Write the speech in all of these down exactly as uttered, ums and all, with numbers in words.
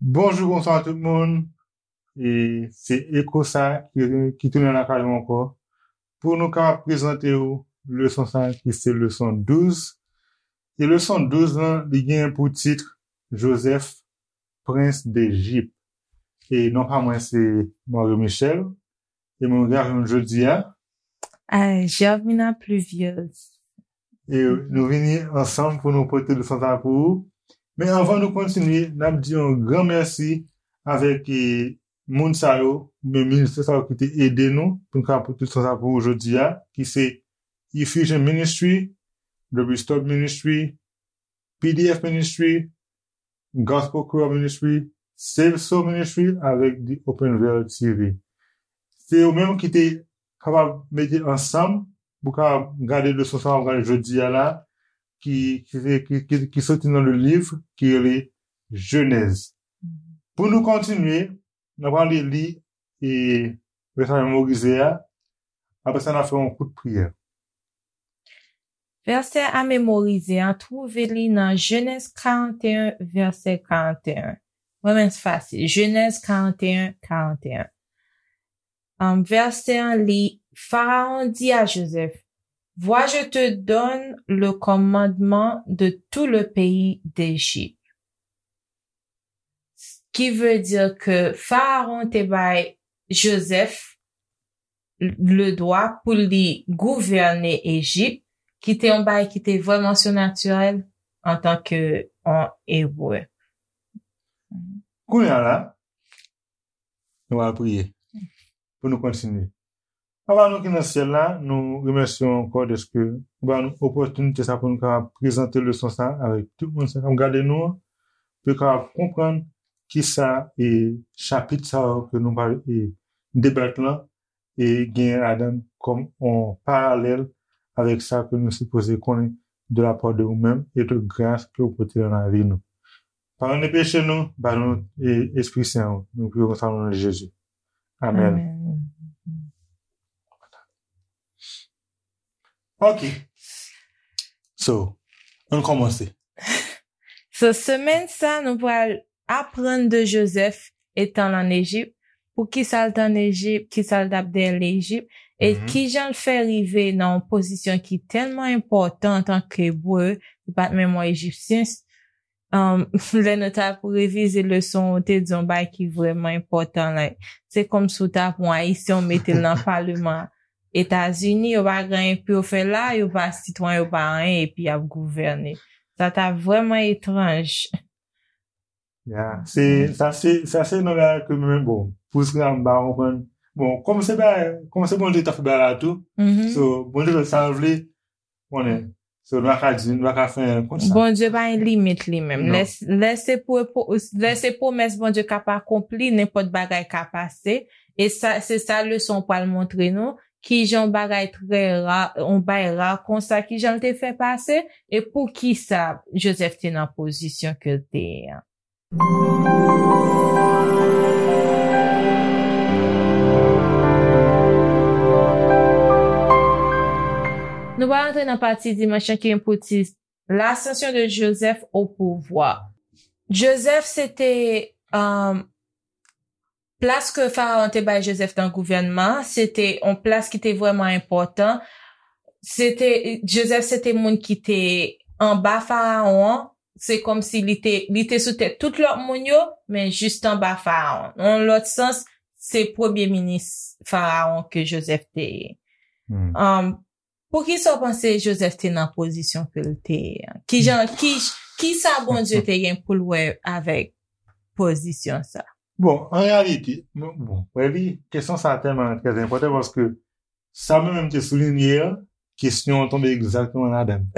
Bonjou, bonswa tout moun. E se Eko sa ki, ki tounen lakay ou ankò pou nou kapab prezante w leson sa ki se leson douz. E leson douz lan, li gen pou tit Joseph, Prens Dejip. E non pa mwen se Mario Michel. E mwen gen avè nou jodi a. Ay, Germina Pluviose. E nou vini ansanm pou nou pote leson sa pou ou. Men anvan nou kontinye, n ap di yon gran mèsi avèk e, moun sa yo, men ministè sa yo ki te ede nou pou n ka pote leson sa pou ou jodi a, ki se Effusion Ministry, The Restored Ministry, P D F Ministry, Gospel Creole Ministry, Save Soul Ministry avèk The Open Veil T V. Se yo menm ki te kapab mete ansanm pou kapab gade leson sa w ap gade jodi a la, ki, ki, ki, ki, ki soti nan le liv ki rele Jenèz. Pou nou kontinye, n ap pale li e vèsè a memorize a. Apre sa, n ap fè yon kout priyè. Vèsè a memorize a twouve li nan Jenèz karannteyen, vèsè karannteyen. Vrèman fasil. Jenèz karannteyen, karannteyen. Um, vèsè an li, Pharaon dit à Joseph, Vois, je te donne le commandement de tout le pays d'Égypte. Ki vle di ke Farawon te bay Jozèf le dwa pou li gouvène Ejip, ki te yon bagay ki te vrèman sinatirèl antanke yon Ebre. Kounye a la, nou pral priye pou nou kontinye. Papa nou ki nan syèl la, nou remèsye w ankò dèske ou ba nou opòtinite sa pou nou kapab prezante leson sa avèk tout moun sa k ap gade nou an, pou yo kapab konprann kisa e chapit sa yo ke nou pral e debat lan e gen ladan kòm yon paralèl avèk sa ke nou sipoze konnen de la part de ou menm e tout gras ke ou pote nan lavi nou. Padone peche nou, ba nou e, Espri Sen ou. Nou priye konsa nan non de Jezi. Amèn. Ok. So, ann kòmanse. So, semèn sa, nou pral aprann de Jozèf etan l ann Ejip, pou kisa l t ann Ejip, kisa l t ap dèyè Lejip, e kijan l fè rive nan yon pozisyon ki tèlman enpòtan antanke Ebre, li pa t menm yon Ejipsyen. Um, lè nou t ap revize leson, ou te di yon bagay ki vrèman enpòtan. Like, se kòmsi w t ap yon Ayisyen, w mete l nan paleman Etazini, yo pa gen anyen pou yo fè la, yo pa sitwayen, yo pa anyen, epi y ap gouvène. Sa t ap vrèman etranj. Ya, se, sa se, sa se nan bagay ke mwen, bon, pou sa m pa konprann. Bon, kòm se bagay, kòm se Bondye k ta fè bagay la tou, so, Bondye fè sa l vle, konnen. So, nou pa ka di, nou pa ka fè anyen kont sa. Bondye pa gen limit li menm. Lè, lè se pou, lè se pwomès Bondye k ap akonpli, nenpòt bagay ka pase. E sa, se sa leson pral montre nou, kijan yon bagay trè ra, yon bagay ra konsa, kijan l te fè pase, e poukisa Jozèf te nan pozisyon ke l te ye an. Nou pral antre nan pati dimanch lan ki gen pou tit L'ascension de Joseph au pouvoir. Jozèf se te, um, plas ke Farawon te bay Jozèf nan gouvènman, se te yon plas ki te vrèman enpòtan. Se te, Jozèf se te moun ki te anba Farawon an. Se kòmsi li te, li te sou tèt tout lòt moun yo, men jis anba Farawon. Nan yon lòt sans, se premye minis Farawon ke Jozèf te ye. Um, poukisa w panse Jozèf te nan pozisyon ke l te ye an? Kijan, ki, kisa Bondye te gen pou l wè avèk pozisyon sa? Bon, an reyalite, bon, bon, wè li, kesyon sa tèlman trè enpòtan paske sa mwen menm te soulinye an, kesyon an tonbe egzakteman ladan l.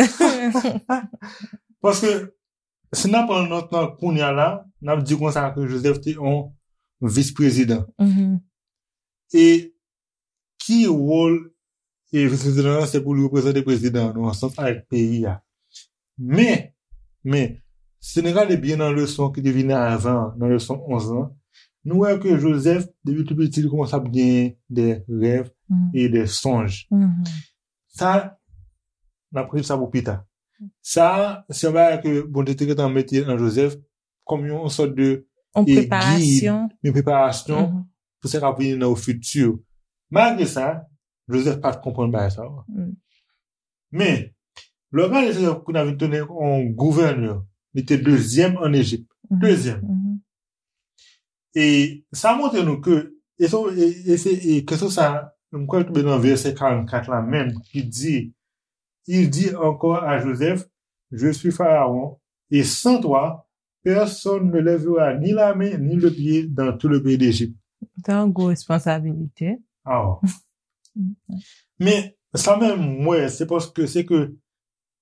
Paske, si n ap pran nòt lan kounye a la, n ap di konsa ke Jozèf te yon vis prezidan. E ki wòl e vis prezidan an, se pou li reprezante prezidan an, nan yon sans avèk peyi a. Men, men, si nou gade byen nan leson ki te vini avan, nan leson onz lan, nou wè ke Jozèf, depi tou piti, li kòmanse ap genyen de rèv e de sonj. Sa, n ap rele sa pou pita. Sa, se yon bagay ke Bondye te gentan mete nan Jozèf kòm yon sòt de yon preparasyon, yon preparasyon pou sa k ap vini nan ofiti. Malgre sa, Jozèf pa t konprann bagay sa yo. Men, lè w gade Jozèf kounye a vin tounen yon gouvènè, li te dezyèm ann Ejip. Dezyèm. E sa montre nou ke, e se, e, e se, e kesyon sa, m kwè l tonbe nan vèsè karannkat la menm, ki di, Il dit encore à Joseph, Je suis Pharaon, et sans toi, personne ne lèvera ni la main ni le pied dans tout le pays d'Égypte. Se yon gwo responsabilite. Aw. Men, sa menm, m wè, se paske, se ke,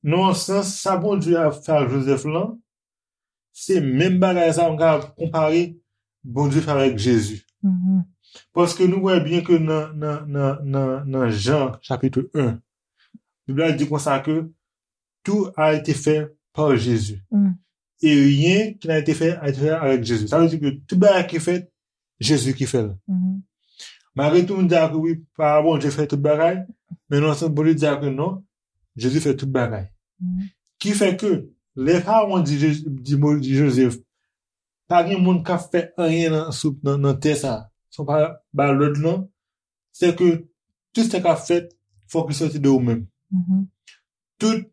nan yon sans, sa Bondye ap fè ak Jozèf lan, se menm bagay sa m ka konpare Bondye fè avèk Jezi. Paske nou wè byen ke nan, nan, nan, nan, nan Jan, chapit en, Bib la di konsa ke tout a été fait par Jésus. Et rien qui n'a été fait a été fait avec Jésus. Sa vle di ke tout bagay ki fèt, Jezi ki fè l. Malgre tou moun di ke wi, pa Bondye fè tout bagay, men nan sans Bondye di ke non, Jezi fè tout bagay. Ki fè ke lè Farawon di, Je- di, Mo- di Jozèf, pa gen moun k ap fè anyen nan, sou, nan, nan tè sa, si w pa ba lòd lan, se ke tout sa k ap fèt, fòk li sòti de ou menm. Tout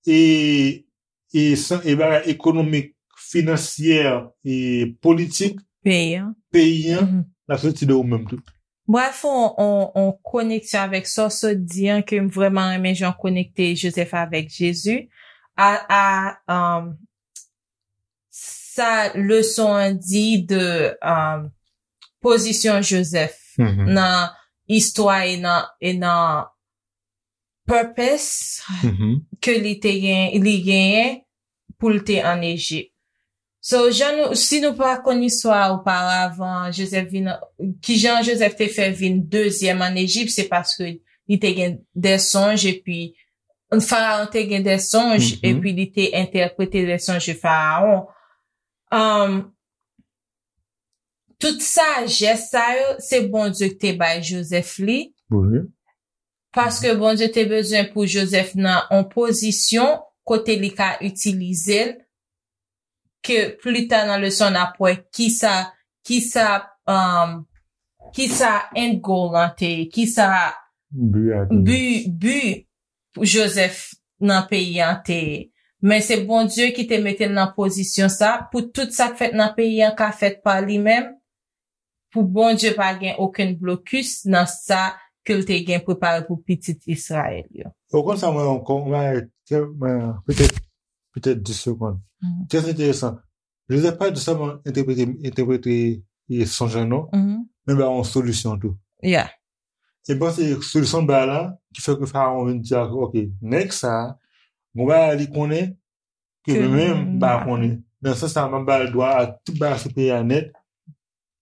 e, e, san- e bagay ekonomik, finansyè, e politik peyi an, peyi an, l ap sòti de ou menm tou. Bref, on, on, on koneksyon avèk sa w sot di an, ke m vrèman renmen jan w konekte Jozèf avèk Jezi. A, a, um, sa leson an di de, um, pozisyon Jozèf nan istwa e nan, e nan purpose ke li te gen, li genyen pou l te ann Ejip. So, jan nou, si nou pa konn istwa a oparavan, Jozèf vin, kijan Jozèf te fè vin dezyèm ann Ejip, se paske li te gen de sonj, epi Farawon te gen de sonj, epi li te entèprete de sonj de Farawon. Um, tout sajès sa yo, se Bondye ki te bay Jozèf li. Paske Bondye te bezwen pou Jozèf nan yon pozisyon kote li ka itilize l, ke pli ta nan leson n ap wè kisa, kisa, um, kisa end goal lan te ye, kisa bi, bi pou Jozèf nan peyi an te ye. Men se Bondye ki te mete l nan pozisyon sa, pou tout sa k fèt nan peyi an ka fèt pa li menm, pou Bondye pa gen okenn blokis nan sa ke l te gen prepare pou pitit Izrayèl yo. Ou konn sa mwen ankò, mwen, mwen, petèt, petèt dis segonn. Trè enteresan. Jozèf pa di sèlman entèprete, entèprete, e, sonj lan non, men ba yon solisyon tou. Yeah. E m panse solisyon ba la, ki fè ke Farawon vin di, "Ok, nèg sa, gon bagay li konnen, ke mwen menm m pa konnen." Nan sans sa, m ap ba l dwa ak tout bagay sou peyi a nèt,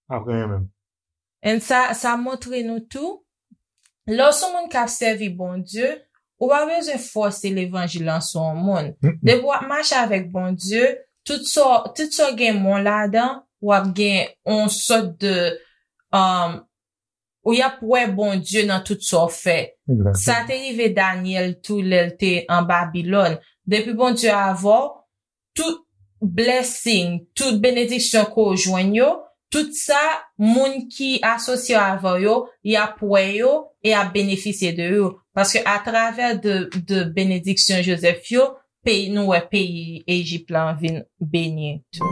apre mwen menm. And sa, sa montre nou tou, lè w se yon moun k ap sèvi Bondye, ou pa bezwen fòse levanjil lan sou yon moun. Depi w ap mache avèk Bondye, tout sa, tout sa w gen men w ladan, w ap gen yon sòt de, um, ou y ap wè Bondye nan tout sa w fè. Sa te rive Danyèl tou lè l te an Babilòn. Depi Bondye avè w, tout blessing, tout benediksyon ke w jwenn yo, tout sa, moun ki asosye avè w yo, y ap wè yo e y ap benefisye de yo. Paske atravè de, de benediksyon Jozèf yo, peyi, nou wè peyi Ejip la vin beni tou.